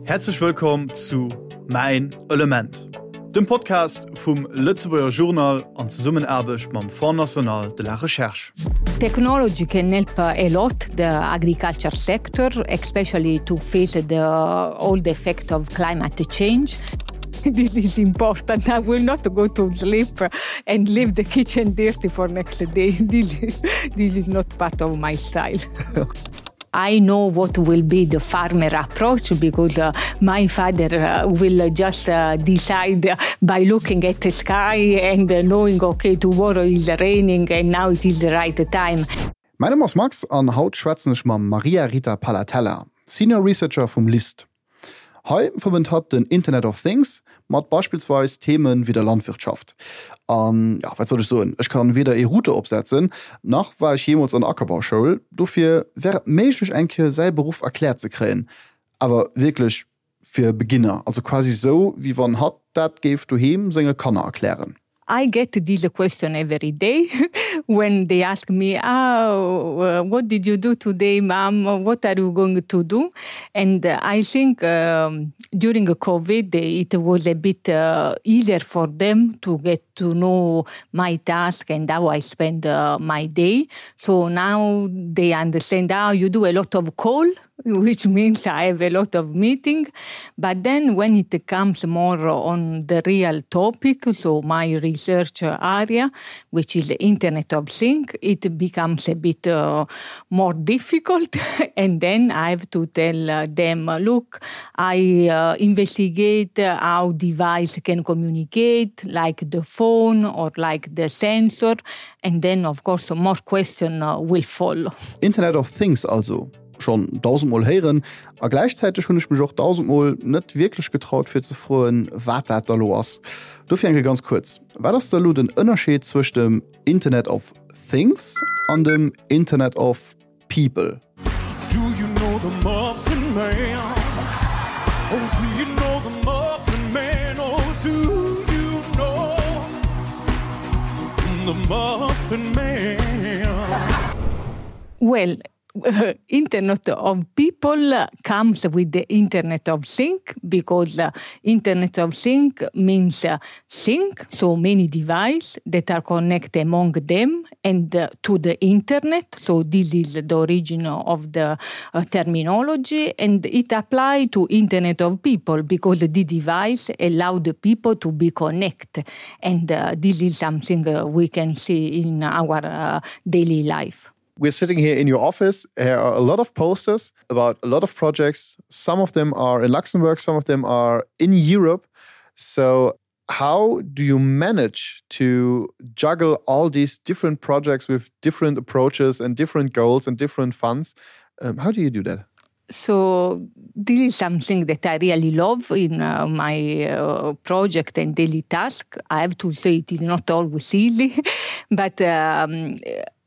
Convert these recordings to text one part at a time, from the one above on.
Häerzlech wëllkomm zu Mäin Element, dem Podcast vum Lëtzebuerger Journal an Zesummenaarbecht mam Fonds National de la Recherche. Technology can help a lot the agriculture sector, especially to face the all the effect of climate change. This is important. I will not go to sleep and leave the kitchen dirty for next day. This, this is not part of my style. I know what will be the farmer approach because uh, my father uh, will just uh, decide by looking at the sky and uh, knowing okay tomorrow is raining and now it is the right time. Mäin Numm ass Max an haut schwätzen ech mam Maria Rita Palatella, Senior Researcher vum LIST. Hei verbënnt hatt den Internet of Things mat beispillsweis Themen wéi der Landwirtschaft. An jo, wat soll ech soen, ech kann weder ee Router opsetzen, nach war ech jeemools an der Ackerbauschoul, dofir wär et méiglech eng Kéier säi Beruff erkläert ze kréien, awer wierklech fir Beginner, also quasi sou wéi wann hatt dat géif doheem senge Kanner erklären. I get this question every day when they ask me, oh, what did you do today, mom? What are you going to do? And I think um, during COVID, it was a bit uh, easier for them to get to know my task and how I spend uh, my day. So now they understand, oh, you do a lot of call which means I have a lot of meeting. But then when it comes more on the real topic, so my research area, which is the Internet of Things, it becomes a bit uh, more difficult. and then I have to tell uh, them, look, I uh, investigate how device can communicate, like the phone or like the sensor. And then, of course, more question uh, will follow. Internet of Things also. Schonn dausendmol héieren a gläichzäiteg hunn ech mech och dausendmol net wierklech getraut fir ze froen, wat dat da lo ass. Dofir eng Kéier ganz kuerz, Wat ass da lo den Ënnerscheed zwëscht dem Internet of Things an dem Internet of People? Do you know the Muffin Man? Oh, do you know the Muffin Man? Oh, do you know the Muffin Man? Well, Internet of People comes with the Internet of Things because Internet of Things means thing, so many devices that are connected among them and to the internet. So this is the origin of the uh, terminology and it applies to Internet of People because the device allow the people to be connected. And uh, this is something uh, we can see in our uh, daily life. We're sitting here in your office. There are a lot of posters about a lot of projects. Some of them are in Luxembourg, some of them are in Europe. So how do you manage to juggle all these different projects with different approaches and different goals and different funds? Um, how do you do that? So this is something that I really love in uh, my uh, project and daily task. I have to say it is not always easy, but um,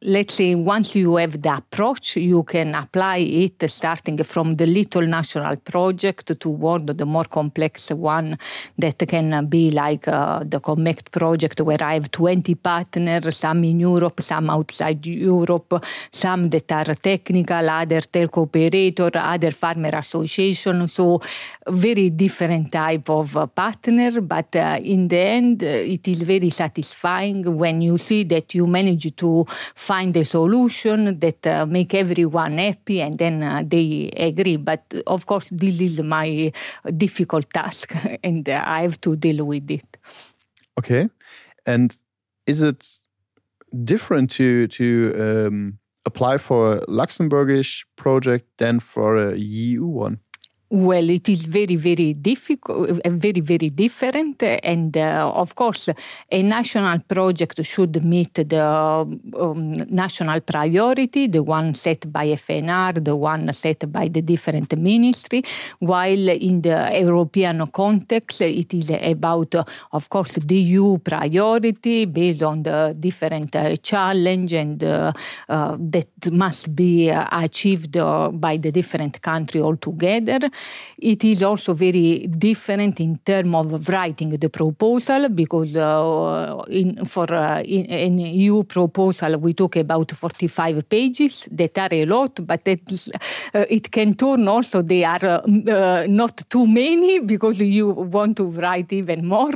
let's say once you have the approach, you can apply it starting from the little national project toward the more complex one that can be like uh, the Connect project where I have 20 partners, some in Europe, some outside Europe, some that are technical, other telco operator, other farmer association. So very different type of partner, but uh, in the end, uh, it is very satisfying when you see that you manage to find a solution that uh, make everyone happy and then uh, they agree. But of course, this is my difficult task and uh, I have to deal with it. Okay. And is it different to, to um, apply for a Luxembourgish project than for a EU one? Well, it is very, very difficult, uh, very, very different. And uh, of course, a national project should meet the um, national priority, the one set by FNR, the one set by the different ministry, while in the European context, it is about, of course, the EU priority based on the different uh, challenge and uh, uh, that must be uh, achieved uh, by the different country altogether. It is also very different in terms of writing the proposal because uh, in, for uh, in, an EU proposal we talk about 45 pages that are a lot, but that, uh, it can turn also they are uh, uh, not too many because you want to write even more.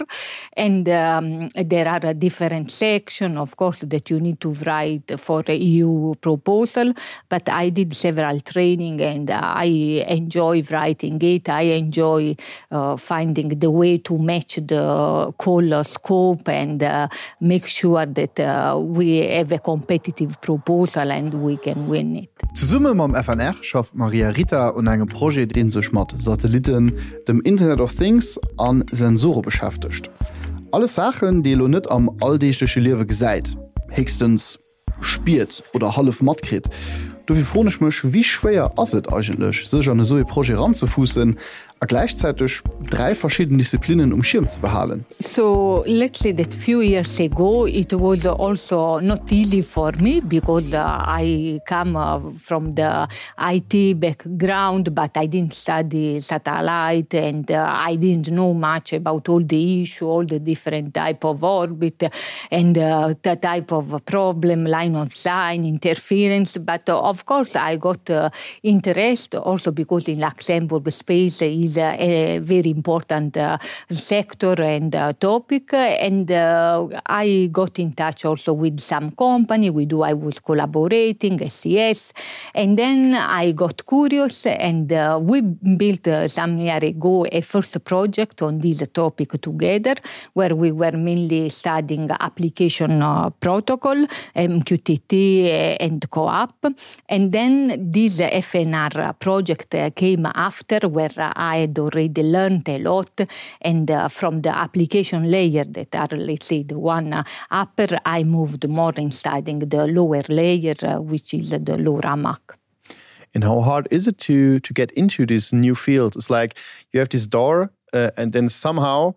And um, there are a different section, of course, that you need to write for a EU proposal. But I did several training and I enjoy writing it. I enjoy uh, finding the way to match the call scope and uh, make sure that uh, we have a competitive proposal and we can win it. Zesumme mam FNR schafft d'Maria Rita un engem Projet, dee sech mat Satellitten, dem Internet of Things a Sensore beschäftegt. Alles Saachen, déi ee lo net am alldeegleche Liewe gesäit, héchstens spiert oder hallef matkritt. Dofir froen ech mech, wéi schwéier ass et eigentlech, sech an esou ee Projet eranzefuussen a gläichzäiteg 3 verschidden Disziplinnen um Schierm ze behalen? So let's say that few years ago it was also not easy for me because I come from the IT background, but I didn't study satellite and I didn't know much about all the issue, all the different type of orbit and the type of problem, line of sign, interference. But of course I got interest also because in Luxembourg space is a very important sector and topic. And I got in touch also with some company with who I was collaborating, SES. And then I got curious and we built some year ago a first project on this topic together where we were mainly studying application protocol, MQTT and CoAP. And then this FNR project came after where I had already learned a lot and from the application layer that are let's say the one upper I moved more in studying the lower layer which is the LoRa MAC. And how hard is it to to get into this new field? It's like you have this door uh, and then somehow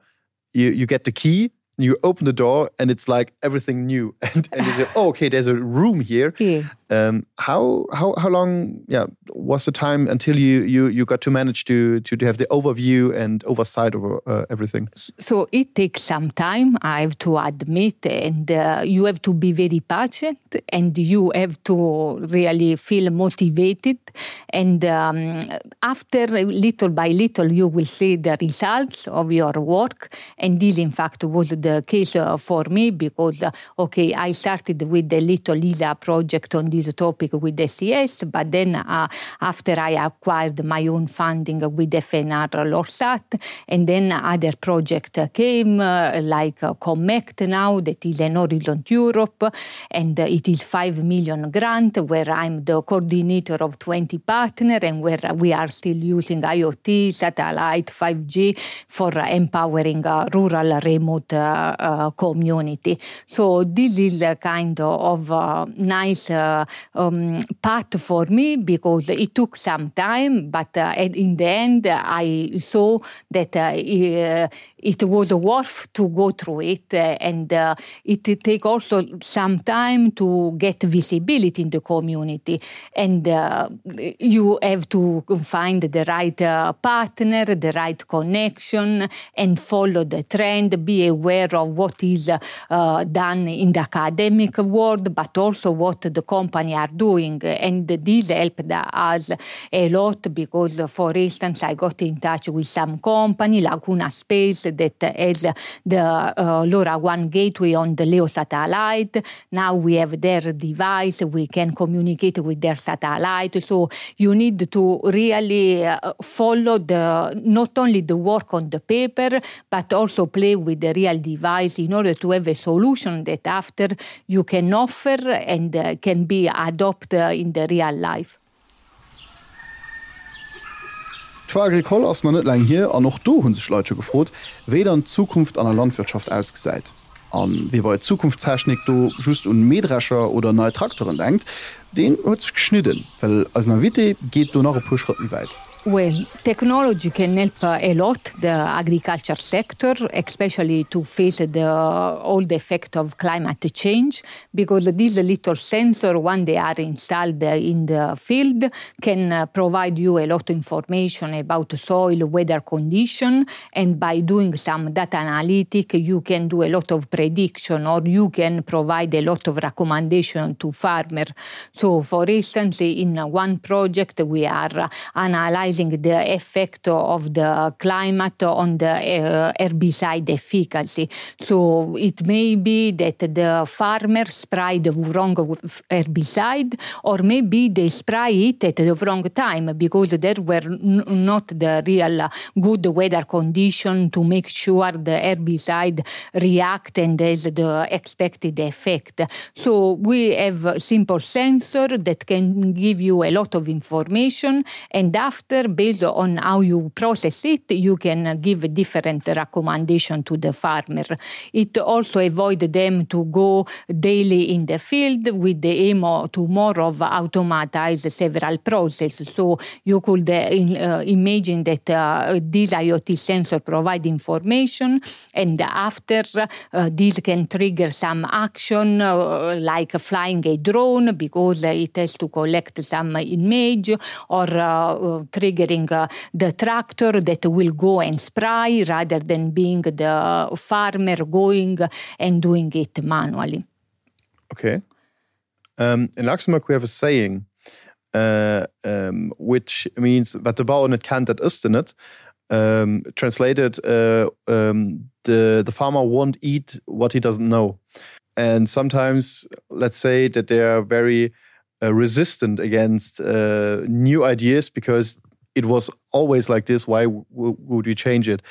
you, you get the key you open the door and it's like everything new and, and you say, oh, okay there's a room here yeah. um, how how how long yeah was the time until you you you got to manage to to, to have the overview and oversight over uh, everything so it takes some time I have to admit and uh, you have to be very patient and you have to really feel motivated and um, after little by little you will see the results of your work and this in fact was the case uh, for me because uh, okay I started with the little Lisa project on this topic with SES but then uh, after I acquired my own funding with FNR Lorsat and then other project came uh, like uh, Connect now that is an Horizon Europe and uh, it is 5 million grant where I'm the coordinator of 20 partner and where we are still using IoT satellite 5G for empowering uh, rural remote uh, uh, community. So this is a kind of uh, nice uh, um, path for me because it took some time, but uh, in the end I saw that uh, it was worth to go through it and uh, it take also some time to get visibility in the community and uh, you have to find the right uh, partner, the right connection and follow the trend, be aware of what is uh, done in the academic world, but also what the company are doing. And this helped us a lot because, for instance, I got in touch with some company, Laguna Space, that has the uh, LoRaWAN gateway on the LEO satellite. Now we have their device, we can communicate with their satellite. So you need to really uh, follow the not only the work on the paper, but also play with the real device in order to have a solution that after you can offer and uh, can be adopted in the real life. D'Foire Agricole ass nach net laang hier an och do hu sech Leit scho gefrot, wéi dann d'Zukunft an der Landwirtschaft ausgesäit. A wie bei Zukunftstechnik do just un Mähdrescher oder nei Trakteren denkt, deen huet sech geschnidden, well eisen Invité geet do nach e puer Schrëtt méi wäit. Well, technology can help a lot the agriculture sector, especially to face the all the effect of climate change, because these little sensor, when they are installed in the field, can uh, provide you a lot of information about soil, weather condition, and by doing some data analytic, you can do a lot of prediction or you can provide a lot of recommendation to farmer. So, for instance, in one project, we are analyzing the effect of the climate on the uh, herbicide efficacy. So it may be that the farmer spray the wrong herbicide or maybe they spray it at the wrong time because there were not the real good weather condition to make sure the herbicide react and has the expected effect. So we have a simple sensor that can give you a lot of information and after based on how you process it you can give different recommendation to the farmer. It also avoid them to go daily in the field with the aim to more of automatize several processes. So you could uh, in, uh, imagine that uh, this IoT sensor provide information and after uh, this can trigger some action uh, like flying a drone because it has to collect some image or uh, triggering uh, the tractor that will go and spray rather than being the farmer going and doing it manually. Okay. Um, in Luxembourg we have a saying uh, um, which means wat de Bauer net kennt, dat ësst en net. Um, translated uh, um, the, the farmer won't eat what he doesn't know. And sometimes let's say that they are very uh, resistant against uh, new ideas because it was always like this why would we change it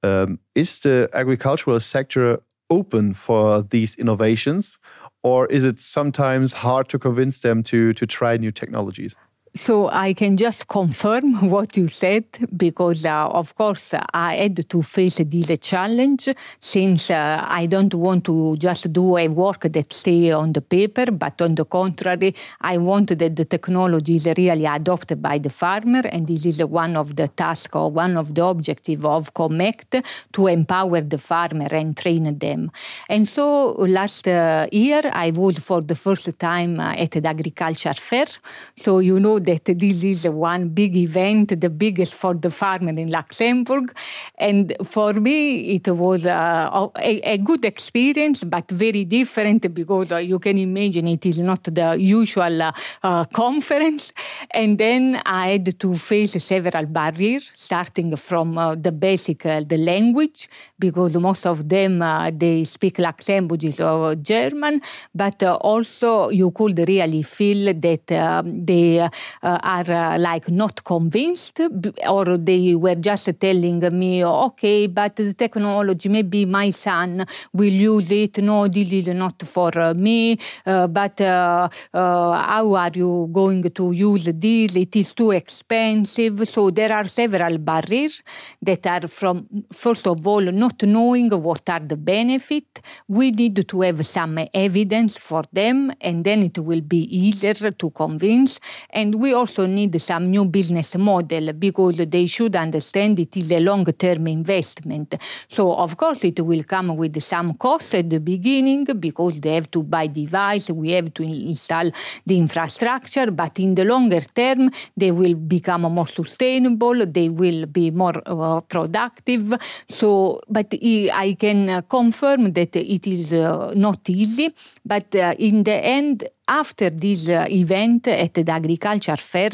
um, is the agricultural sector open for these innovations or is it sometimes hard to convince them to to try new technologies So I can just confirm what you said because uh, of course I had to face this challenge since uh, I don't want to just do a work that stay on the paper but on the contrary I want that the technology is really adopted by the farmer and this is one of the task or one of the objective of Connect to empower the farmer and train them. And so last uh, year I was for the first time uh, at the agriculture fair so you know that this is one big event, the biggest for the farmer in Luxembourg. And for me, it was uh, a, a good experience, but very different because uh, you can imagine it is not the usual uh, uh, conference. And then I had to face several barriers, starting from uh, the basic, uh, the language, because most of them, uh, they speak Luxembourgish or German, but uh, also you could really feel that uh, they uh, are uh, like not convinced or they were just telling me okay but the technology maybe my son will use it no this is not for uh, me uh, but uh, uh, how are you going to use this it is too expensive so there are several barriers that are from first of all not knowing what are the benefit we need to have some evidence for them and then it will be easier to convince and we also need some new business model because they should understand it is a long-term investment. So of course it will come with some costs at the beginning because they have to buy device, we have to install the infrastructure, but in the longer term they will become more sustainable, they will be more uh, productive. So but I can uh, confirm that it is uh, not easy, but uh, in the end after this uh, event at the agriculture fair,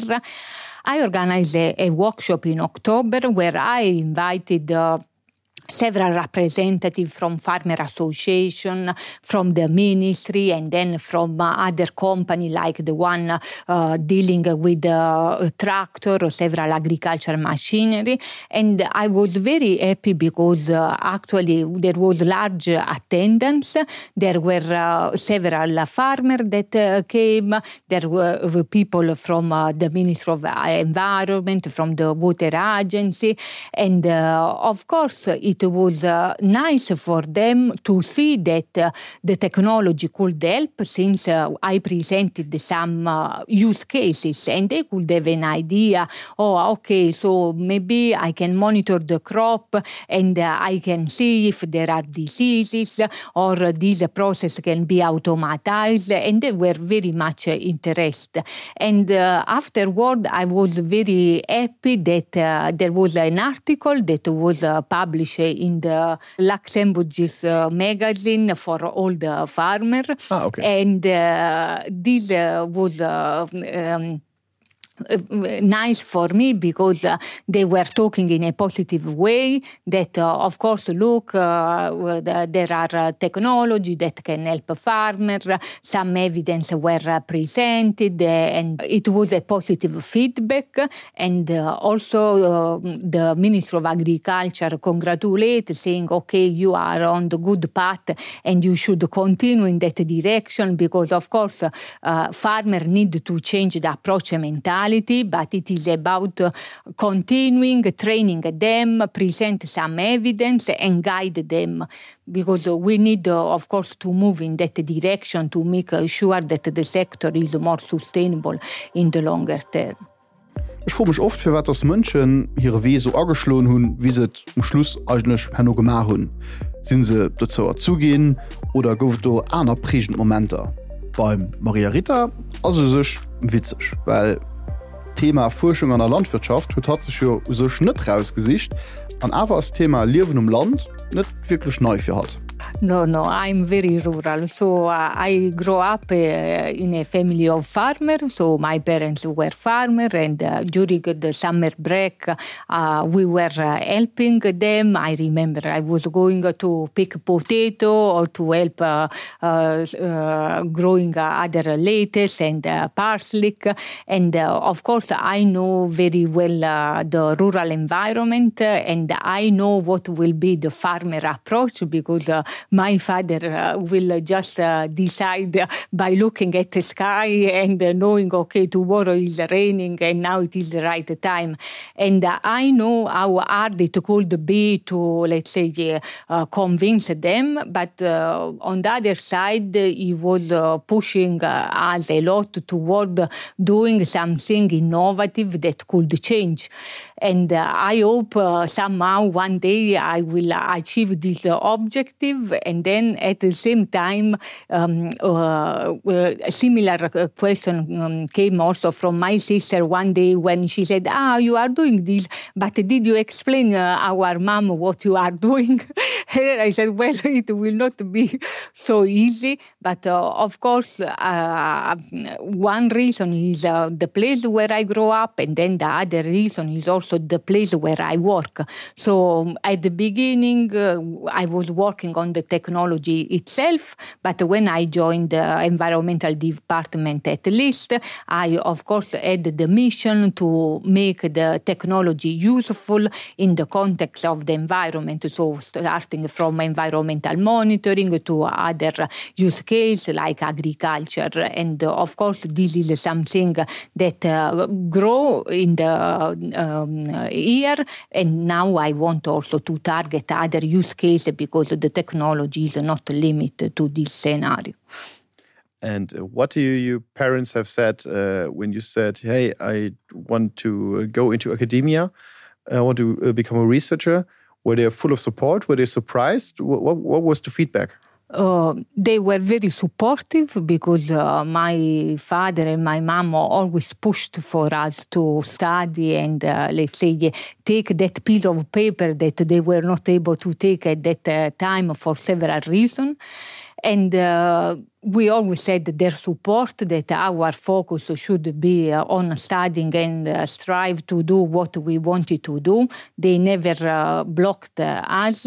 I organized a, a workshop in October where I invited uh, several representatives from farmer association from the ministry and then from uh, other company like the one uh, dealing with uh, tractor or several agriculture machinery and I was very happy because uh, actually there was large attendance there were uh, several farmers that uh, came there were people from uh, the Ministry of Environment from the water agency and uh, of course it it was uh, nice for them to see that uh, the technology could help since uh, I presented some uh, use cases and they could have an idea oh okay so maybe I can monitor the crop and uh, I can see if there are diseases or this process can be automatized and they were very much interested and uh, afterward I was very happy that uh, there was an article that was uh, published in the Luxembourg's uh, magazine for all the farmer ah, okay. and uh, this uh, was uh, um, nice for me because uh, they were talking in a positive way that uh, of course look uh, there are uh, technology that can help farmer some evidence were uh, presented uh, and it was a positive feedback and uh, also uh, the minister of agriculture congratulate saying okay you are on the good path and you should continue in that direction because of course uh, farmer need to change the approach mentality but it is about continuing training them present some evidence and guide them because we need uh, of course to move in that direction to make sure that the sector is more sustainable in the longer term. Ech froe mech oft, firwat dass Mënschen hire Wee sou ageschloen hunn, wéi se et um Schluss eigentlech herno gemaach hunn. Sinn se dozou erzu ginn oder gouf et do aner prägend Momenter? Beim Maria Rita ass et u sech witzeg, well d'Thema Fuerschung an der Landwirtschaft huet hatt sech jo u sech net rausgesicht an awer ass d'Thema Liewen um Land net wierklech nei fir hatt. No, no, I'm very rural. So uh, I grew up uh, in a family of farmers. So my parents were farmer and uh, during the summer break, uh, we were uh, helping them. I remember I was going to pick potato or to help uh, uh, uh, growing other lettuce and uh, parsley. And uh, of course, I know very well uh, the rural environment uh, and I know what will be the farmer approach because uh, my father uh, will just uh, decide by looking at the sky and uh, knowing okay tomorrow is raining and now it is the right time and uh, I know how hard it could be to let's say uh, convince them but uh, on the other side he was uh, pushing uh, us a lot toward doing something innovative that could change and uh, I hope uh, somehow one day I will achieve this uh, objective and then at the same time um, uh, uh, a similar uh, question um, came also from my sister one day when she said ah you are doing this but did you explain uh, our mom what you are doing and I said well it will not be so easy but uh, of course uh, one reason is uh, the place where I grow up and then the other reason is also the place where I work so um, at the beginning uh, I was working on the technology itself but when I joined the environmental department at least I of course had the mission to make the technology useful in the context of the environment so starting from environmental monitoring to other use case like agriculture and uh, of course this is something that uh, grow in the um, year and now I want also to target other use case because the technology is not limited to this scenario. And uh, what do you, your parents have said uh, when you said, hey, I want to uh, go into academia, I want to uh, become a researcher? Were they full of support? Were they surprised? What, what, what was the feedback? Uh, they were very supportive because uh, my father and my mom always pushed for us to study and uh, let's say take that piece of paper that they were not able to take at that uh, time for several reasons and uh, we always said their support that our focus should be uh, on studying and uh, strive to do what we wanted to do they never uh, blocked uh, us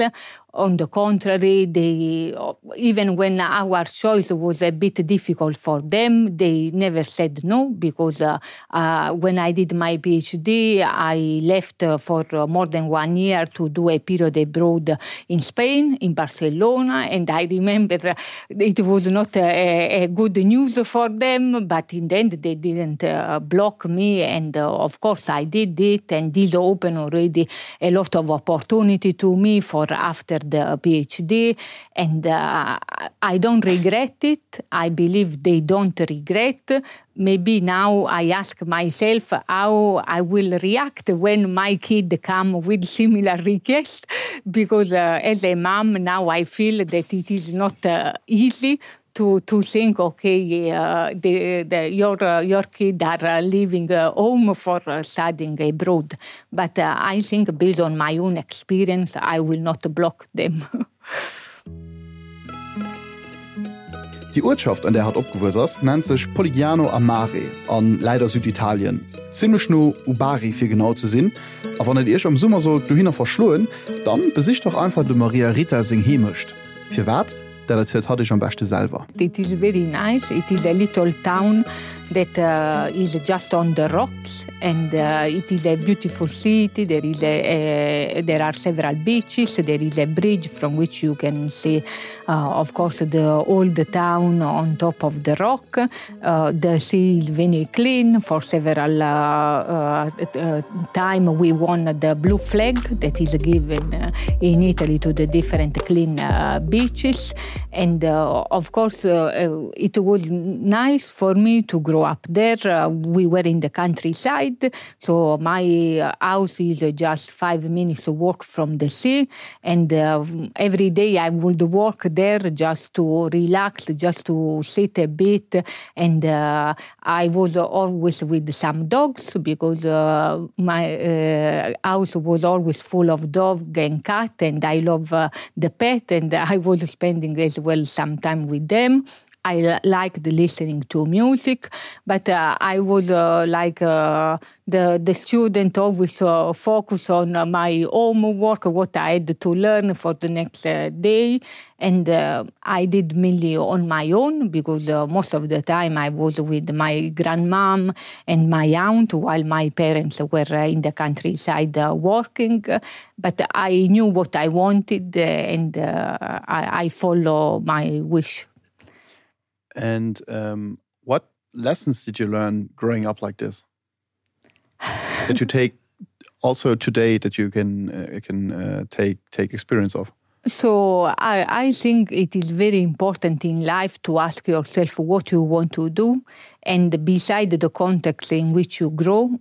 on the contrary they even when our choice was a bit difficult for them they never said no because uh, uh, when I did my PhD I left uh, for uh, more than one year to do a period abroad in Spain in Barcelona and I remember it was not uh, a, a good news for them, but in the end they didn't uh, block me and uh, of course I did it and this opened already a lot of opportunity to me for after the PhD and uh, I don't regret it. I believe they don't regret. Maybe now I ask myself how I will react when my kid come with similar request because uh, as a mom now I feel that it is not uh, easy to to think okay uh, the, the, your uh, your kid are uh, leaving uh, home for uh, studying abroad but uh, I think based on my own experience I will not block them. Déi Uertschaft, an där hatt opgewuess ass, nennt sech Polignano a Mare a läit a Süditalien, zimmlech no u Bari fir genau ze sinn. A wann et iech am Summer sollt dohinner verschloen, dann besicht dach einfach dem Maria Rita seng Heemecht. Firwat? Dat erzielt hatt iech am beschte selwer. It is very nice. It is a little town that uh, is just on the rocks and uh, it is a beautiful city. There is a, a, there are several beaches. There is a bridge from which you can see uh, of course the old town on top of the rock. Uh, the sea is very clean. For several uh, uh, uh, time we won the blue flag that is given uh, in Italy to the different clean uh, beaches. And uh, of course uh, uh, it was nice for me to grow up there. Uh, we were in the countryside, so my uh, house is uh, just five minutes walk from the sea. And uh, every day I would walk there just to relax, just to sit a bit. And uh, I was always with some dogs because uh, my uh, house was always full of dog and cat, and I love uh, the pet, and I was spending as well some time with them. I liked listening to music, but uh, I was uh, like uh, the, the student always uh, focus on uh, my homework, what I had to learn for the next uh, day. And uh, I did mainly on my own because uh, most of the time I was with my grandmom and my aunt while my parents were uh, in the countryside uh, working. But I knew what I wanted uh, and uh, I, I follow my wish. And um, what lessons did you learn growing up like this? that you take also today that you can uh, can uh, take take experience of? So I, I think it is very important in life to ask yourself what you want to do and beside the context in which you grow,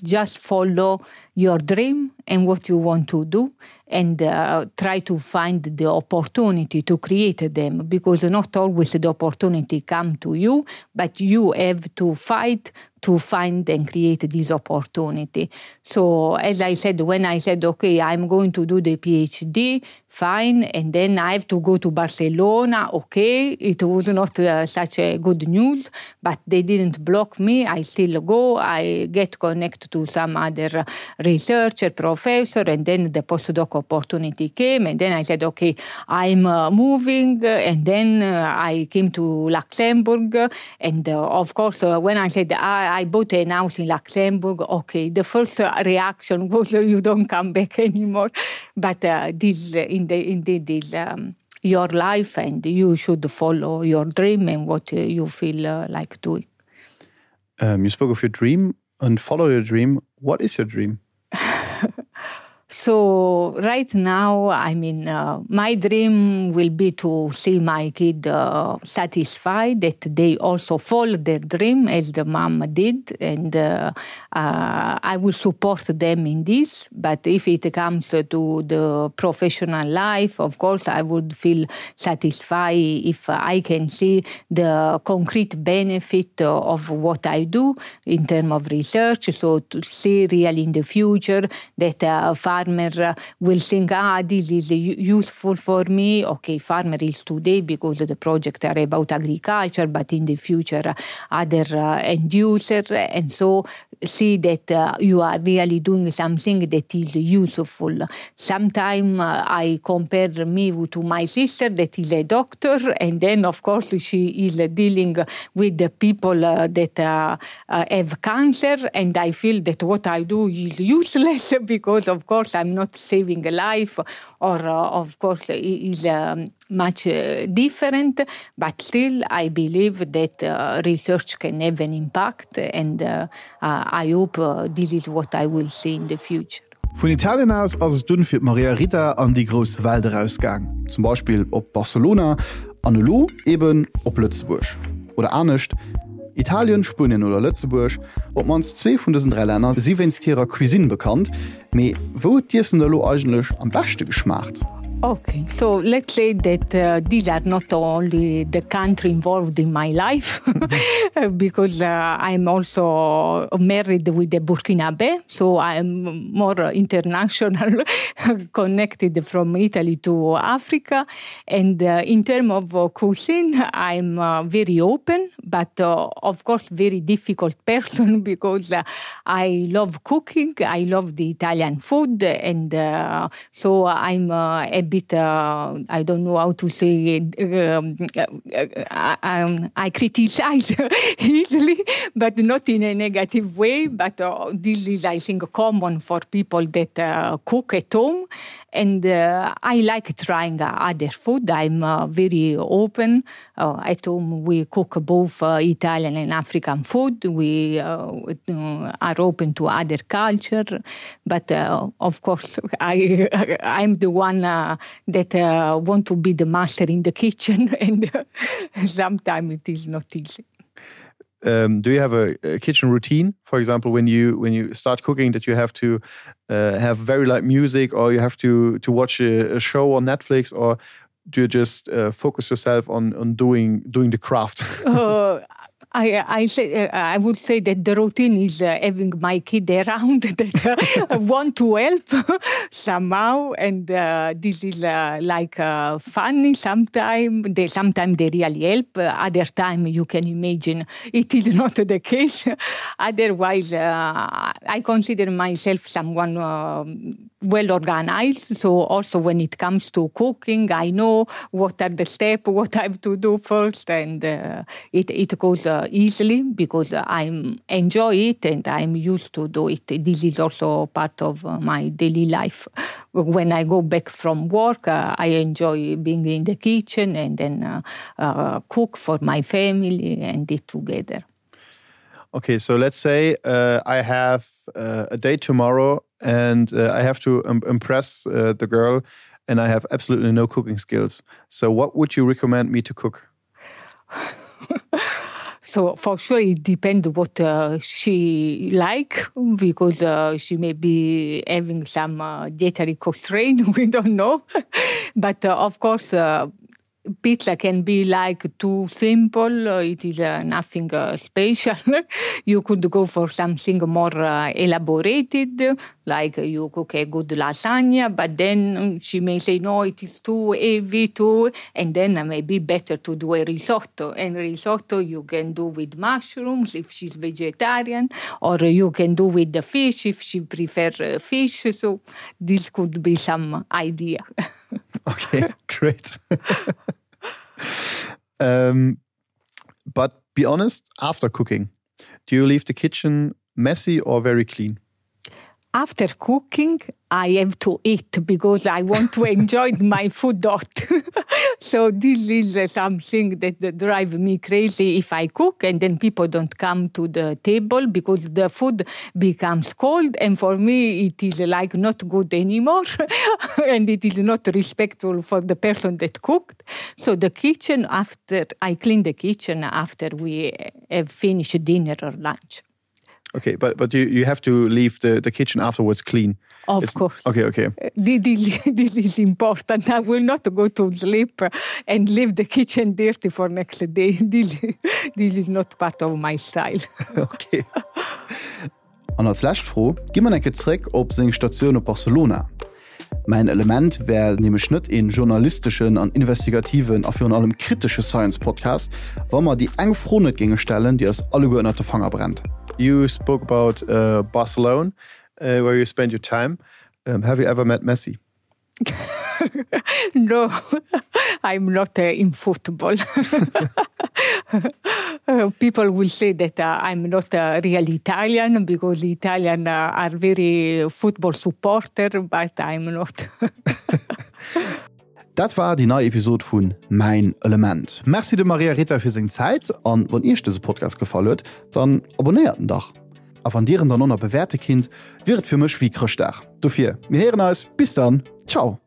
just follow your dream and what you want to do and uh, try to find the opportunity to create them because not always the opportunity come to you but you have to fight to find and create this opportunity. So as I said, when I said, okay, I'm going to do the PhD, fine, and then I have to go to Barcelona, okay, it was not uh, such a good news, but they didn't block me. I still go, I get connected to some other researcher, professor, and then the postdoc opportunity came, and then I said, okay, I'm uh, moving, and then uh, I came to Luxembourg, and uh, of course, uh, when I said, I, I bought a house in Luxembourg, okay, the first reaction was, you don't come back anymore. But uh, this, uh, in the, indeed, is um, your life, and you should follow your dream and what uh, you feel uh, like doing. Um, you spoke of your dream and follow your dream. What is your dream? So right now, I mean, uh, my dream will be to see my kid uh, satisfied that they also follow their dream as the mom did, and uh, uh, I will support them in this. But if it comes to the professional life, of course, I would feel satisfied if I can see the concrete benefit of what I do in terms of research. So to see really in the future that a farmer will think, ah, this is useful for me. Okay, farmer is today because the project are about agriculture, but in the future other uh, end user. And so. see that uh, you are really doing something that is useful. Sometimes uh, I compare me to my sister that is a doctor, and then of course she is dealing with the people uh, that uh, uh, have cancer, and I feel that what I do is useless because of course I'm not saving a life, or uh, of course it is um, much uh, different, but still I believe that uh, research can have an impact and uh, uh, I hope uh, this is what I will see in the future. Vun Italien aus ass et dunn fir d'Maria Rita an déi grouss Welt erausgaang, zum Beispill op Barcelona an elo eben op Lëtzebuerg. Oder anescht, Italien, Spuenien oder Lëtzebuerg, op d'mannst zwee vun dësen 3 Länner si wéinst hirer Cuisine bekannt, Mee wou huet d'Iessen der elo eigentlech am beschte geschmaacht? Okay, so let's say that uh, these are not only the country involved in my life, because uh, I'm also married with a Burkinabe, so I'm more international, connected from Italy to Africa. And uh, in terms of uh, cuisine, I'm uh, very open, but uh, of course very difficult person because uh, I love cooking, I love the Italian food, and uh, so I'm uh, a bit, uh, I don't know how to say it, um, uh, I, um, I criticize easily, but not in a negative way. But uh, this is, I think, common for people that uh, cook at home. And uh, I like trying other food. I'm uh, very open. Uh, at home, we cook both uh, Italian and African food. We uh, are open to other culture. But uh, of course, I, I'm the one uh, that uh, want to be the master in the kitchen, and sometimes it is not easy. Um, do you have a, a kitchen routine for example when you when you start cooking that you have to uh, have very light music or you have to to watch a, a show on Netflix or do you just uh, focus yourself on on doing doing the craft uh, I, I, say, uh, I would say that the routine is uh, having my kid around that uh, want to help somehow and uh, this is uh, like uh, funny sometimes they sometimes they really help uh, other time you can imagine it is not the case otherwise uh, I consider myself someone uh, well organized so also when it comes to cooking I know what are the step what I have to do first and uh, it, it goes uh, easily because I'm enjoy it and I'm used to do it this is also part of uh, my daily life when I go back from work uh, I enjoy being in the kitchen and then uh, uh, cook for my family and eat together okay so let's say uh, I have uh, a day tomorrow and uh, I have to um, impress uh, the girl and I have absolutely no cooking skills so what would you recommend me to cook so for sure it depends what uh, she like because uh, she may be having some uh, dietary constraint we don't know but uh, of course uh, pizza can be like too simple uh, it is uh, nothing uh, special you could go for something more uh, elaborated like you cook a good lasagna but then she may say no it is too heavy too and then uh, maybe better to do a risotto and risotto you can do with mushrooms if she's vegetarian or you can do with the fish if she prefer uh, fish so this could be some idea okay great um, but be honest after cooking do you leave the kitchen messy or very clean after cooking I have to eat because I want to enjoy my food dot. so this is uh, something that, that drive me crazy if I cook and then people don't come to the table because the food becomes cold and for me it is like not good anymore and it is not respectful for the person that cooked. So the kitchen after I clean the kitchen after we have finished dinner or lunch. Okay, but but you you have to leave the the kitchen afterwards clean. Of It's, course. Okay, okay. This, this is important. I will not go to sleep and leave the kitchen dirty for next day. This, this is not part of my style. okay. An als lescht Fro gi mer enke zréck op seng Statioun op Barcelona. Mäin Element wär nämlech net een journalisteschen an investigativen a virun allem kritesche Science-Podcast, wa mer déi eng Fro net géinge stellen, déi eis alleguer ënnert de Fanger brennt. You spoke about uh, Barcelona, uh, where you spend your time. Um, have you ever met Messi? no, I'm not uh, in football. Uh, people will say that uh, I'm not a real Italian because the Italian uh, are very football supporter, but I'm not. Dat war déi nei Episod vun Mäin Element. Merci dem Maria Rita fir seng Zäit an wann Iech dëse Podcast gefall huet, dann abonnéiert en dach. A wann Dir en dann och nach bewäerte kinnt, wier et fir mech wéi Chrëschtdag. Dofir, mir héieren eis, bis dann, ciao!